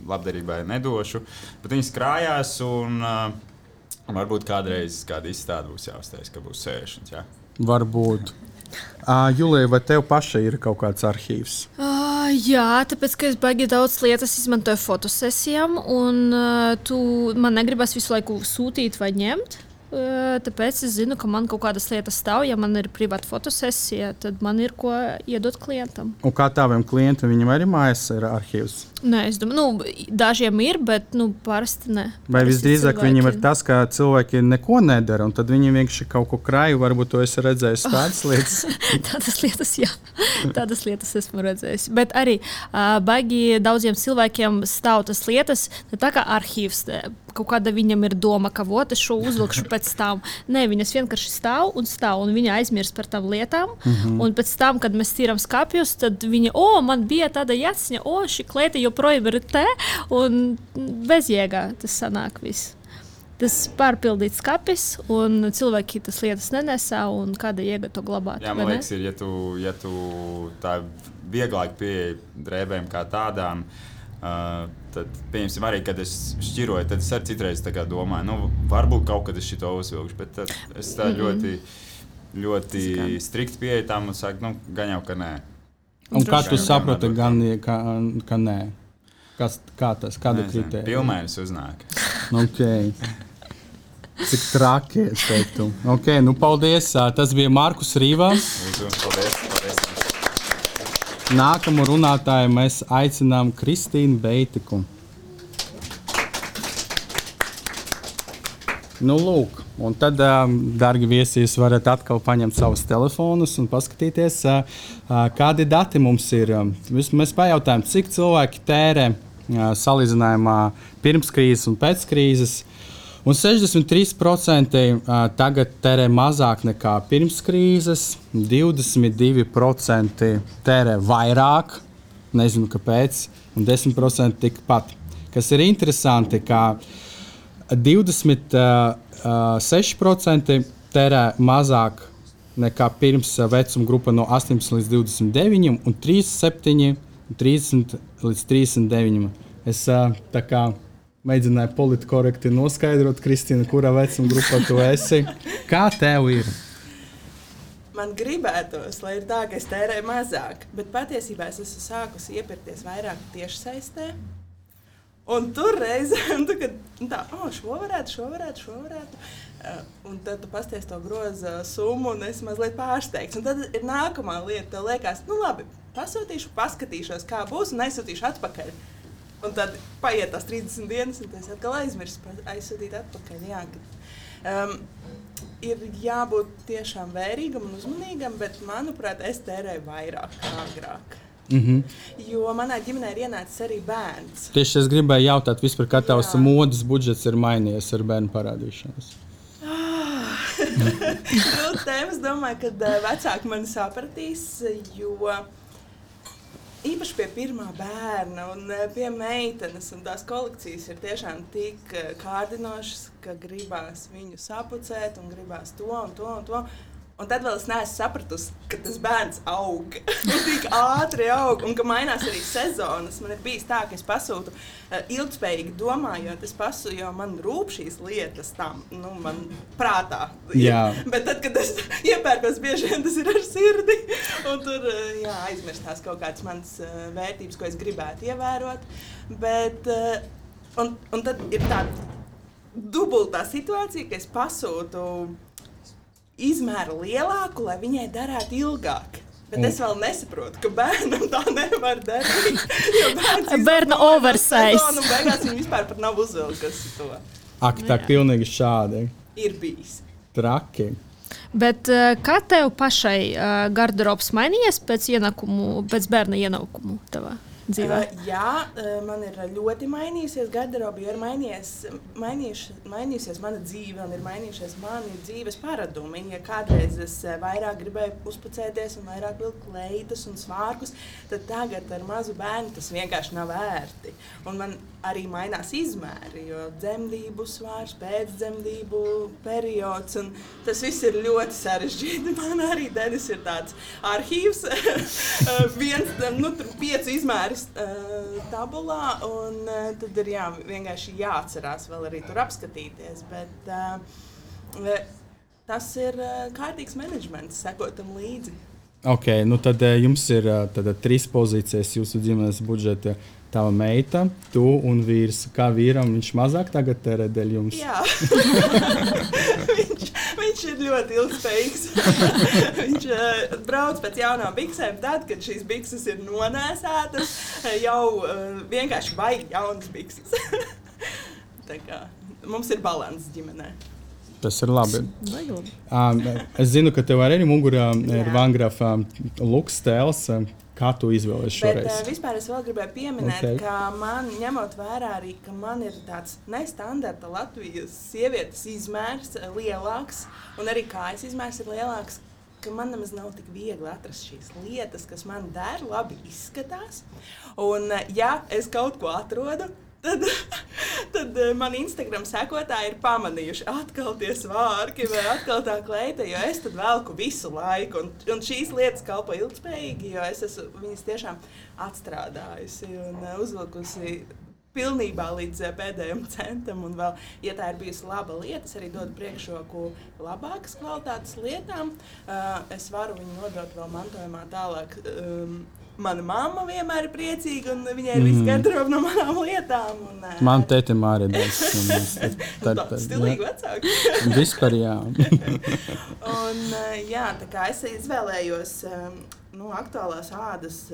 labdarībai nedošu, bet viņas krājās un varbūt kādreiz kāda izstāde būs jāuztais, ka būs sēšanas. Jā. Varbūt. Julija, vai tev pašai ir kaut kāds arhīvs? Jā, tāpēc, ka es baigi daudz lietas izmantoju fotosesijām, un man negribas visu laiku sūtīt vai ņemt. Tāpēc es zinu, ka man kaut kādas lietas stāv. Ja man ir privāta fotosesija, tad man ir ko iedot klientam. Un kā taviem klientiem, viņam arī mājās ir arhīvs? Nē, es domāju, dažiem ir, bet parasti ne. Vai visdrīzāk viņiem ir tas, ka cilvēki neko nedara, un tad viņi vienkārši kaut ko krāju, varbūt to esi redzējis tādas lietas? Tādas lietas, jā. Tādas lietas esmu redzējis. Bet arī baigi daudziem cilvēkiem stāv tas lietas, tā kā arhīvs. Kaut kāda viņam ir doma, ka es šo uzvilkšu pēc tam. Nē, viņas vienkārši stāv, un viņa aizmirst par tām lietām. Un pēc tam, kad mēs tīram skapjus, tad viņa, man bija tāda jāciņa, šī klieta joprojām ir te, un bezjēgā tas sanāk viss. Tas pārpildīts skapis, un cilvēki tas lietas nenesā, un kāda jēga to glabāt. Jā, man liekas, ja tu tā vieglāk pieeja drēbēm kā tādām, tad, pieņemsim, arī, kad es šķiroju, tad es arī citreiz tā kā domāju, varbūt kaut kad es šito uzvilkšu, bet tad es tā ļoti strikti pieeju tam un saku, gan jau, ka nē. Un kā tu saproti, ka nē? Kāda kritērija? Pilnmēnes uznāk. Okay. Cik traki, es teiktu. Okay, paldies. Tas bija Markus Rīvā. Paldies. Nākamu runātāju mēs aicinām Kristīnu Beitiku. Lūk, un tad, dargi viesi, jūs varat atkal paņemt savus telefonus un paskatīties, kādi dati mums ir. Mēs pajautājām, cik cilvēki tērē salīdzinājumā pirms krīzes un pēc krīzes. Un 63% tagad tērē mazāk nekā pirms krīzes, 22% tērē vairāk, nezinu kāpēc, un 10% tikpat. Kas ir interesanti, ka 26% tērē mazāk nekā pirms vecuma grupa no 18 līdz 29, un 37, 30 līdz 39. Es tā kā mēģināju politkorekti noskaidrot, Kristīna, kurā vecuma grupā tu esi. Kā tev ir? Man gribētos, lai ir tā, ka es tērēju mazāk, bet patiesībā es esmu sākusi iepirkties vairāk tiešsaistē. Un tur reizēm, šo varētu. Un tad tu pasties to groza summu un esi mazliet pārsteigts. Un tad ir nākamā lieta, tev liekas, labi, pasūtīšu, paskatīšos, kā būs un aizsūtīšu atpakaļ. Un tad paiet tās 30 dienas, un tas atkal aizsūtīt atpakaļ. Jā, ir jābūt tiešām vērīgam un uzmanīgam, bet, manuprāt, es tērēju vairāk kā agrāk. Jo manā ģimenē ir ienācis arī bērns. Tieši es gribēju jautāt, vispār, kā tavs modes budžets ir mainījies ar bērnu parādīšanos? Es domāju, ka vecāki mani sapratīs, jo īpaši pie pirmā bērna un pie meitenes, un tās kolekcijas ir tiešām tik kārdinošas, ka gribās viņu sapucēt un gribās to un to un to. Un tad vēl es neesmu sapratusi, ka tas bērns aug, tik ātri aug, un ka mainās arī sezonas. Man ir bijis tā, ka es pasūtu ilgspējīgi domājot, jo man rūp šīs lietas tam, man prātā. Jā. Bet tad, kad es iepērkos, bieži vien tas ir ar sirdi, un tur aizmirstās kaut kādas manas vērtības, ko es gribētu ievērot. Bet, un tad ir tāda dubultā situācija, ka es pasūtu izmēru lielāku, lai viņai darētu ilgāk. Bet es vēl nesaprotu, ka bērnam tā nevar darīt. Bērna oversize. Un beigās viņa vispār pat nav uzvilkusi to. Ak, tā pilnīgi šādi. Ir bijis. Traki. Bet kā tev pašai garderobs mainījies pēc bērna ienākumu tavā? dzīvē? Man ir ļoti mainījusies garderoba, jo ir mainījusies mana dzīve un ir mainījušies mani dzīves paradumi. Ja kādreiz es vairāk gribēju uzpucēties un vairāk vilkt kleitas un svārkus, tad tagad ar mazu bērnu tas vienkārši nav vērti. Un man arī mainās izmēri, jo dzemdību svārs, pēcdzemdību periods, un tas viss ir ļoti sarežģīti. Man arī Denis ir tāds arhīvs, tur 5 izmēris tabulā, un tad ir vienkārši jāatcerās vēl arī tur apskatīties, bet tas ir kārtīgs menedžments, sekotam līdzi. Ok, tad jums ir 3 pozīcijas jūsu ģimenes budžeta. Tava meita, tu un vīrs. Kā vīram viņš mazāk tagad tērē dēļ jums? Jā. viņš ir ļoti ilgspējīgs. Viņš brauc pēc jaunām biksēm tad, kad šīs bikses ir nonēsētas, jau vienkārši baigi jaunas bikses. Tā kā mums ir balans ģimenē. Tas ir labi. Es zinu, ka tev arī mugurā ir Vangrafa luks tēls. Kā tu izvēlies šoreiz? Bet vispār es vēl gribēju pieminēt, ka man, ņemot vērā arī, ka man ir tāds nestandarta Latvijas sievietes izmērs lielāks, un arī kājas izmērs ir lielāks, ka man nemaz nav tik viegli atrast šīs lietas, kas man der, labi izskatās. Un ja es kaut ko atrodu, tad man Instagram sekotāji ir pamanījuši atkal tie svārki vai atkal tā kleita, jo es tad velku visu laiku. Un šīs lietas kalpo ilgspējīgi, jo es esmu viņas tiešām atstrādājusi un uzvilkusi pilnībā līdz pēdējiem centam. Un vēl, ja tā ir bijusi laba lieta, es arī dodu priekšroku labākas kvalitātes lietām. Es varu viņu nodot vēl mantojumā tālāk. Mana mamma vienmēr ir priecīga, un viņai ir viss garderoba no manām lietām. Man tētim arī daudz. Stilīgi vecāki. Vispār, jā. Un tā kā es izvēlējos aktuālās ādas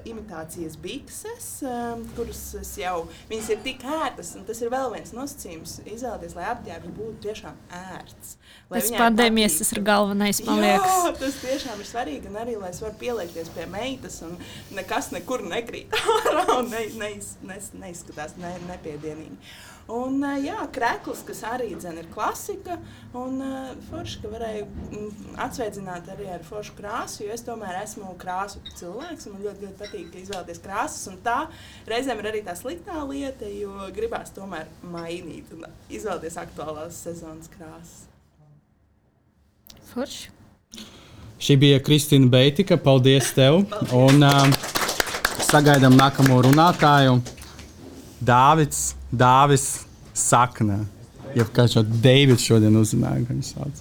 imitācijas bikses, kuras viņas ir tik ērtas, un tas ir vēl viens nosacījums izvēlēties, lai apģērbs būtu tiešām ērts. Pēc pandēmijas tas ir galvenais, man liekas. Jā, tas tiešām ir svarīgi, un arī, lai es varu pieliekties pie meitas, un nekas nekur nekrīt ārā, un neizskatās nepiedienīgi. Un krekls, kas arī ir klasika, un forši, ka varēju atsveidzināt arī ar foršu krāsu, jo es tomēr esmu krāsu cilvēks, un man ļoti patīk izvēlēties krāsas, un tā reizēm ir arī tā sliktā lieta, jo gribās tomēr mainīt un izvēlēties aktuālās sezonas krāsas. Forši. Šī bija Kristīna Beitika, paldies tev, un sagaidām nākamo runātāju. Dāvis Sakne. Ja kāds jau Deivids šodien uzrunāja, ka viņš sauc.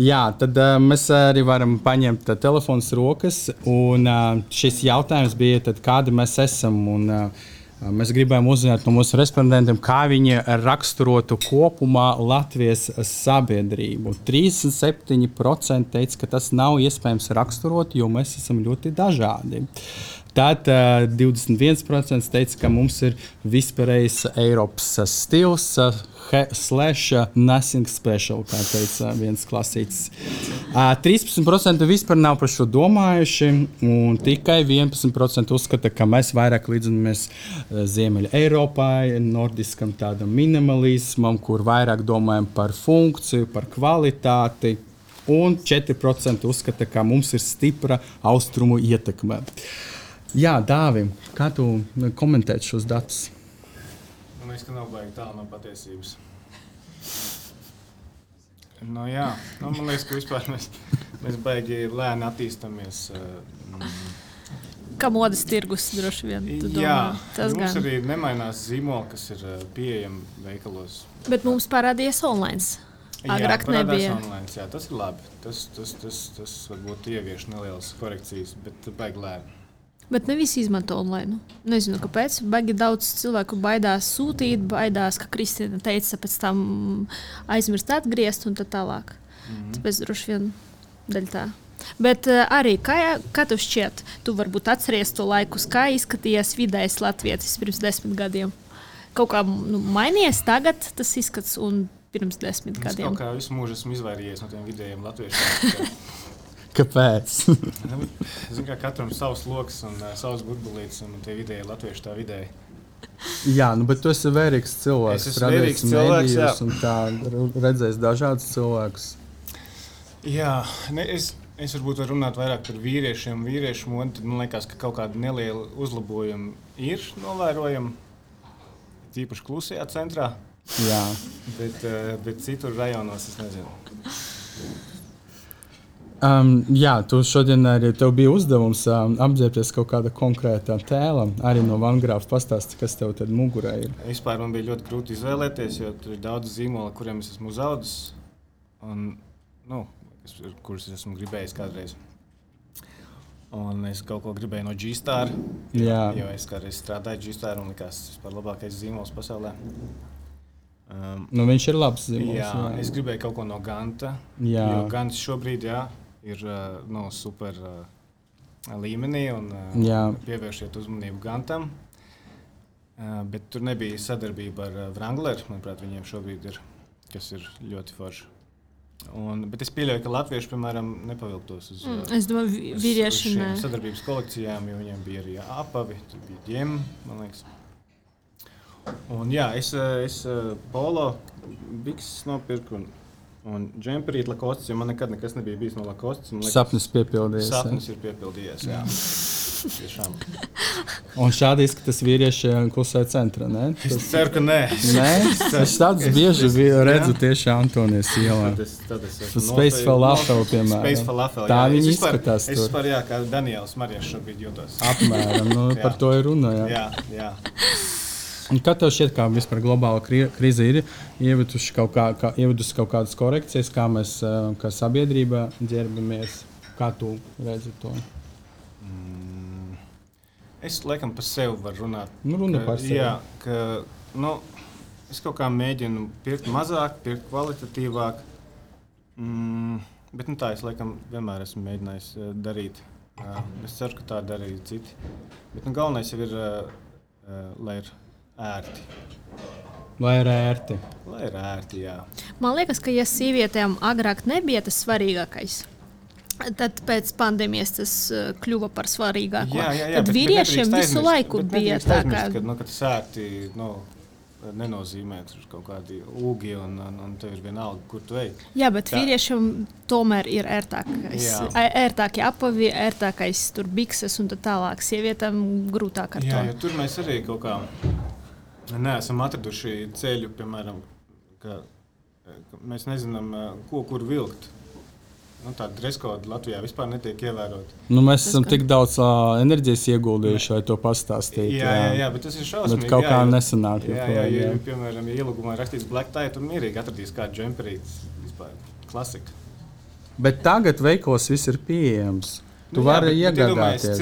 Jā, tad mēs arī varam paņemt telefonus rokas, un šis jautājums bija, tad, kādi mēs esam, un mēs gribējām uzzināt no mūsu respondentiem, kā viņi raksturotu kopumā Latvijas sabiedrību. 37% teica, ka tas nav iespējams raksturot, jo mēs esam ļoti dažādi. Tad 21% teica, ka mums ir vispārējais Eiropas stils / nothing special, kā teica viens klasītis. 13% vispār nav par šo domājuši, un tikai 11% uzskata, ka mēs vairāk līdzinamies Ziemeļa Eiropai, nordiskam tādam minimalismam, kur vairāk domājam par funkciju, par kvalitāti, un 4% uzskata, ka mums ir stipra austrumu ietekme. Jā, Dāvi, kā tu komentēt šos datus? Man liekas, ka nav baigi tālu no patiesības. Jā, man liekas, ka vispār mēs baigi lēni attīstamies. Kā modes tirgus droši vien, tu domā? Jā, tas mums gan. arī nemainās zīmoli, kas ir pieejami veikalos. Bet mums parādījās online. Agrāk nebija. Online, jā, tas ir labi. Tas varbūt ievieš nelielas korekcijas, bet baigi lēni. Bet ne visi izmanto online. Nezinu, kāpēc. Baigi daudz cilvēku baidās sūtīt, baidās, ka Kristīna teica, pēc tam aizmirst atgriezt un tā tālāk. Tāpēc droši vien daļ tā. Bet arī, kā tev šķiet, tu varbūt atceries to laikus, kā izskatījās vidējais latvietis pirms 10 gadiem? Kaut kā mainījies tagad tas izskats un pirms 10 gadiem? Es kaut kā visu mūžu esmu izvairījies no tiem vidējiem latviešiem. Kāpēc? Zinu, kā katram savs loks un savs burbulītis, un tie vidēji latvieši tā vidēji. Jā, bet tu esi vērīgs cilvēks. Es esmu vērīgs cilvēks, jā. Un tā redzēs dažādus cilvēkus. Jā, es varbūt varu runāt vairāk par vīriešiem un vīriešu modi, tad man liekas, ka kaut kāda neliela uzlabojuma ir novērojama, tīpaši klusajā centrā. Jā. Bet citur rajonos es nezinu. Jā, tu šodien arī tev bija uzdevums apģērbties kaut kāda konkrētā tēla. Arī no Vangrāfa pastāsti, kas tev tad mugurē ir. Vispār man bija ļoti grūti izvēlēties, jo tur ir daudz zīmoli, kuriem es esmu uzaudzis. Un, kurus es esmu gribējis kādreiz. Un es kaut ko gribēju no G-Star, jo es kādreiz strādāju G-Star un likās vispār labākais zīmols pasaulē. Viņš ir labs zīmols. Jā, es gribēju kaut ko no Ganta, jo Gants šobrīd ir super līmenī un pievēršiet uzmanību Gantam. Bet tur nebija sadarbība ar Wrangler, manuprāt, viņiem šobrīd ir, kas ir ļoti forši. Bet es pieļauju, ka latvieši, piemēram, nepavilktos uz šiem sadarbības kolekcijām, jo viņiem bija arī apavi, tur bija ģem, man liekas. Un jā, es polo bikses nopirku un džemperīt Lacoste, jo man nekad nekas nebija bijis no Lacoste. Sapnis piepildījies. Sapnis ir piepildījies, jā. Tiešām. Un šādi izskatās vīrieši klusajā centrā, ne? Es ceru, ka nē. Nē? Es tādus bieži redzu tieši Antonijas ielā. Space Falafel, piemēram. Space Falafel, tā viņi izskatās tur. Es vispār, kā Daniels Marijas šobrīd jūtos. Apmēram, par to ir runa, jā. Un kā tev šķiet, kā vispār globāla krīze ir ievedusi kaut kādas korekcijas, kā mēs kā sabiedrība ģērbamies? Kā tu redzi to? Es laikam par sevi varu runāt. Runa par sevi. Jā, es kaut kā mēģinu pirkt mazāk, pirkt kvalitatīvāk. Bet tā es laikam vienmēr esmu mēģinājis darīt. Es ceru, ka tā dara arī citi. Bet galvenais jau ir, lai ir ērti. Lai ir ērti. Lai ir ērti, jā. Man liekas, ka ja sievietēm agrāk nebija tas svarīgākais, tad pēc pandēmijas tas kļuva par svarīgāko. Jā, tad vīriešiem visu laiku bija tā, ka tas ērti nenozīmē kaut kādi ūgi un tev ir vienalga, kur tu ej. Jā, bet vīriešiem tomēr ir ērtākie apavi, ērtākais tur bikses un tā tālāk. Sievietēm grūtāk ar to. Jā, jo tur mēs arī kaut kā neesam atraduši ceļu, piemēram, ka mēs nezinām, kur vilkt. Tāda dreskoda Latvijā vispār netiek ievērota. Mēs esam tik daudz enerģijas ieguldījuši, lai to pastāstītu. Jā, bet tas ir šausmīgi. Bet kaut kā nesanāk. Jā, piemēram, ja ielūgumā rakstīts black tie, tur mierīgi atradīs kādu džemperīti. Vispār klasika. Bet tagad veikos viss ir pieejams. Tu vari iegādāties.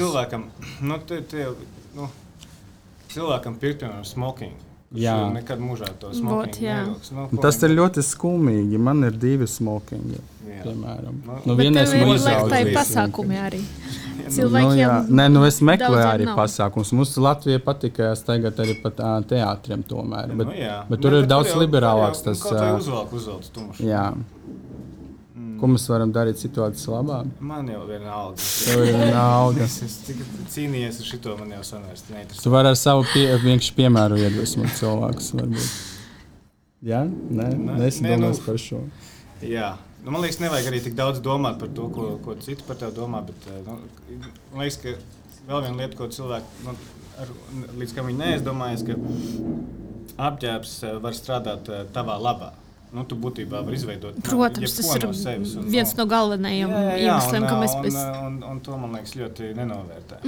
Cilvēkam pirkt, piemēram, smoking. Jā. Nekad mūžā to smokingu nevilks. Tas ir ļoti skumīgi. Man ir 2 smokingi, piemēram. Vienais man izraudzījis. Pasākumi arī. Cilvēkiem es meklēju arī pasākumus. Mums Latvijā patika staigāt arī pa teātriem tomēr. Bet tur ir daudz liberālāks tas. Kaut vai uzvelc tumšu. Jā. Ko mēs varam darīt situācijas labā? Man jau vienalga. Tev ir vienalga. Es cīnījies ar šito, man jau sanvērst neinteresē. Tu vari ar savu vienkārši piemēru iedvesmot cilvēkus, varbūt. Jā? Nesi domās par šo. Jā. Man liekas, nevajag arī tik daudz domāt par to, ko citi par tevi domā, bet man liekas, ka vēl viena lieta, ko cilvēki, līdz kam viņi neaizdomājas, ka apģērbs var strādāt tavā labā. Tu būtībā var izveidot. Protams, tas ir viens no galvenajiem iemesliem, ka mēs un to, man liekas, ļoti nenovērtē.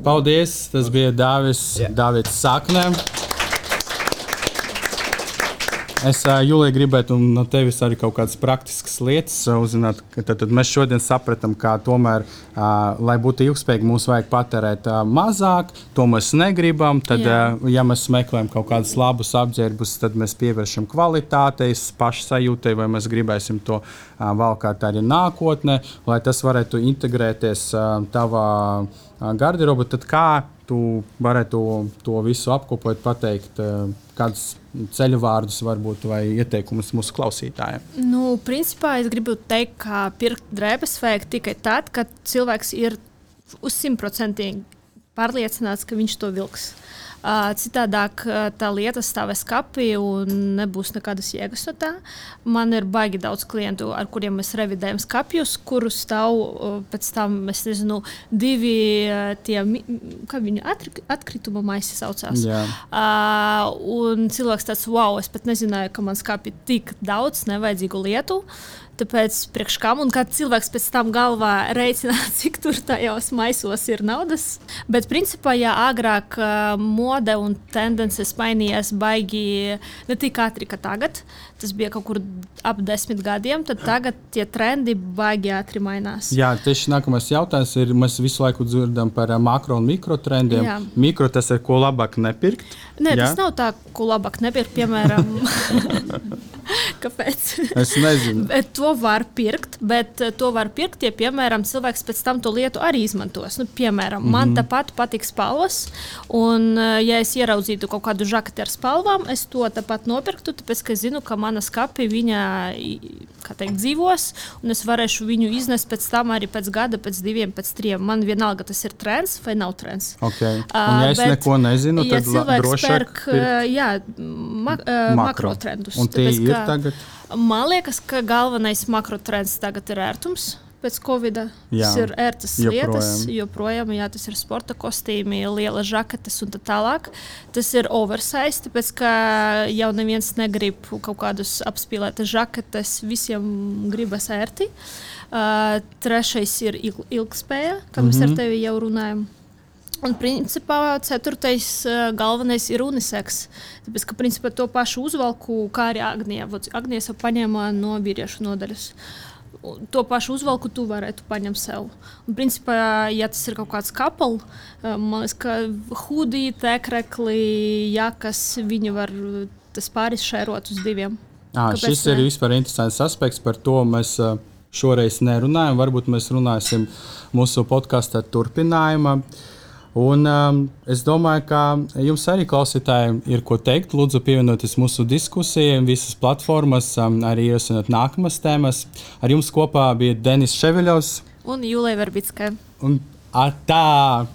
Paldies! Tas bija Dāvids Sakne. Es, Julija, gribētu no tevis arī kaut kādas praktiskas lietas uzzināt. Tad mēs šodien sapratām, ka tomēr, lai būtu ilgspējīgi, mums vajag patērēt mazāk. To mēs negribam. Tad, ja mēs meklējam kaut kādus labus apģērbus, tad mēs pievēršam kvalitātei, pašsajūtai, vai mēs gribēsim to valkāt arī nākotnē, lai tas varētu integrēties tavā garderobu. Tad kā tu varētu to visu apkopot, pateikt, kādus ceļu vārdus varbūt vai ieteikumus mūsu klausītājiem? Nu, principā es gribu teikt, ka pirkt drēbes vajag tikai tad, kad cilvēks ir uz 100% pārliecināts, ka viņš to vilks. Citādāk tā lieta stāvēs skapī un nebūs nekādas jēgas no tā. Man ir baigi daudz klientu, ar kuriem mēs revidējam skapjus, kurus stāv pēc tam, es nezinu, 2 tie, kā viņu atkrituma maisi saucās. Un cilvēks tāds, wow, es pat nezināju, ka man skapī tik daudz nevajadzīgu lietu. Tāpēc priekš kam un kad cilvēks pēc tam galvā reiķina, cik tur tajos maisos ir naudas. Bet principā, ja agrāk mode un tendences mainījās baigi ne tik ātri, kā tagad, tas bija kaut kur ap 10 gadiem, tad tagad tie trendi baigi ātri mainās. Jā, tieši nākamais jautājums ir, mēs visu laiku dzirdam par makro un mikro trendiem. Jā. Mikro tas ir, ko labāk nepirkt? Nē, tas nav tā, ko labāk nepirkt, piemēram. Kāpēc? Es nezinu. Bet to var pirkt, ja, piemēram, cilvēks pēc tam to lietu arī izmantos. Nu, piemēram, man tāpat patīk spalvas, un ja es ieraudzītu kaut kādu žaketi ar spalvām, es to tāpat nopirktu, tāpēc, ka es zinu, ka mana skapi viņa, kā teikt, dzīvos, un es varēšu viņu iznest pēc tam arī pēc gada, pēc 2, pēc 3. Man vienalga, tas ir trends vai nav trends. Okay. Un ja es neko nezinu, tad drošāk pirkt makro trendus. Un tie ir tagad? Man liekas, ka galvenais makrotrends tagad ir ērtums. Pēc Covid-a tas ir ērtas lietas, joprojām, jā, tas ir sporta kostīmi, liela žaketes un tā tālāk. Tas ir oversize, tāpēc, ka jau neviens negrib kaut kādus apspīlētas žaketes, visiem gribas ērti. Trešais ir ilgspēja, kā mēs ar tevi jau runājam. Un, principā, 4. galvenais ir unisex. Tāpēc, ka, principā, to pašu uzvalku, kā arī Agnija. Agnija paņēma no vīriešu nodaļas. To pašu uzvalku tu varētu paņemt sev. Un, principā, ja tas ir kaut kāds couple, man liekas, ka hudi, tekrekli, jakas, viņi var tas pāris šērot uz 2. Šis ir vispār interesants aspekts, par to mēs šoreiz nerunājam. Varbūt mēs runāsim mūsu podkāstā turpinājumā. Un es domāju, ka jums arī klausītājiem ir ko teikt. Lūdzu, pievienoties mūsu diskusijai, visas platformas, arī ierosināt nākamas tēmas. Ar jums kopā bija Denis Ševiļovs un Jūlija Verbicka. Un tā!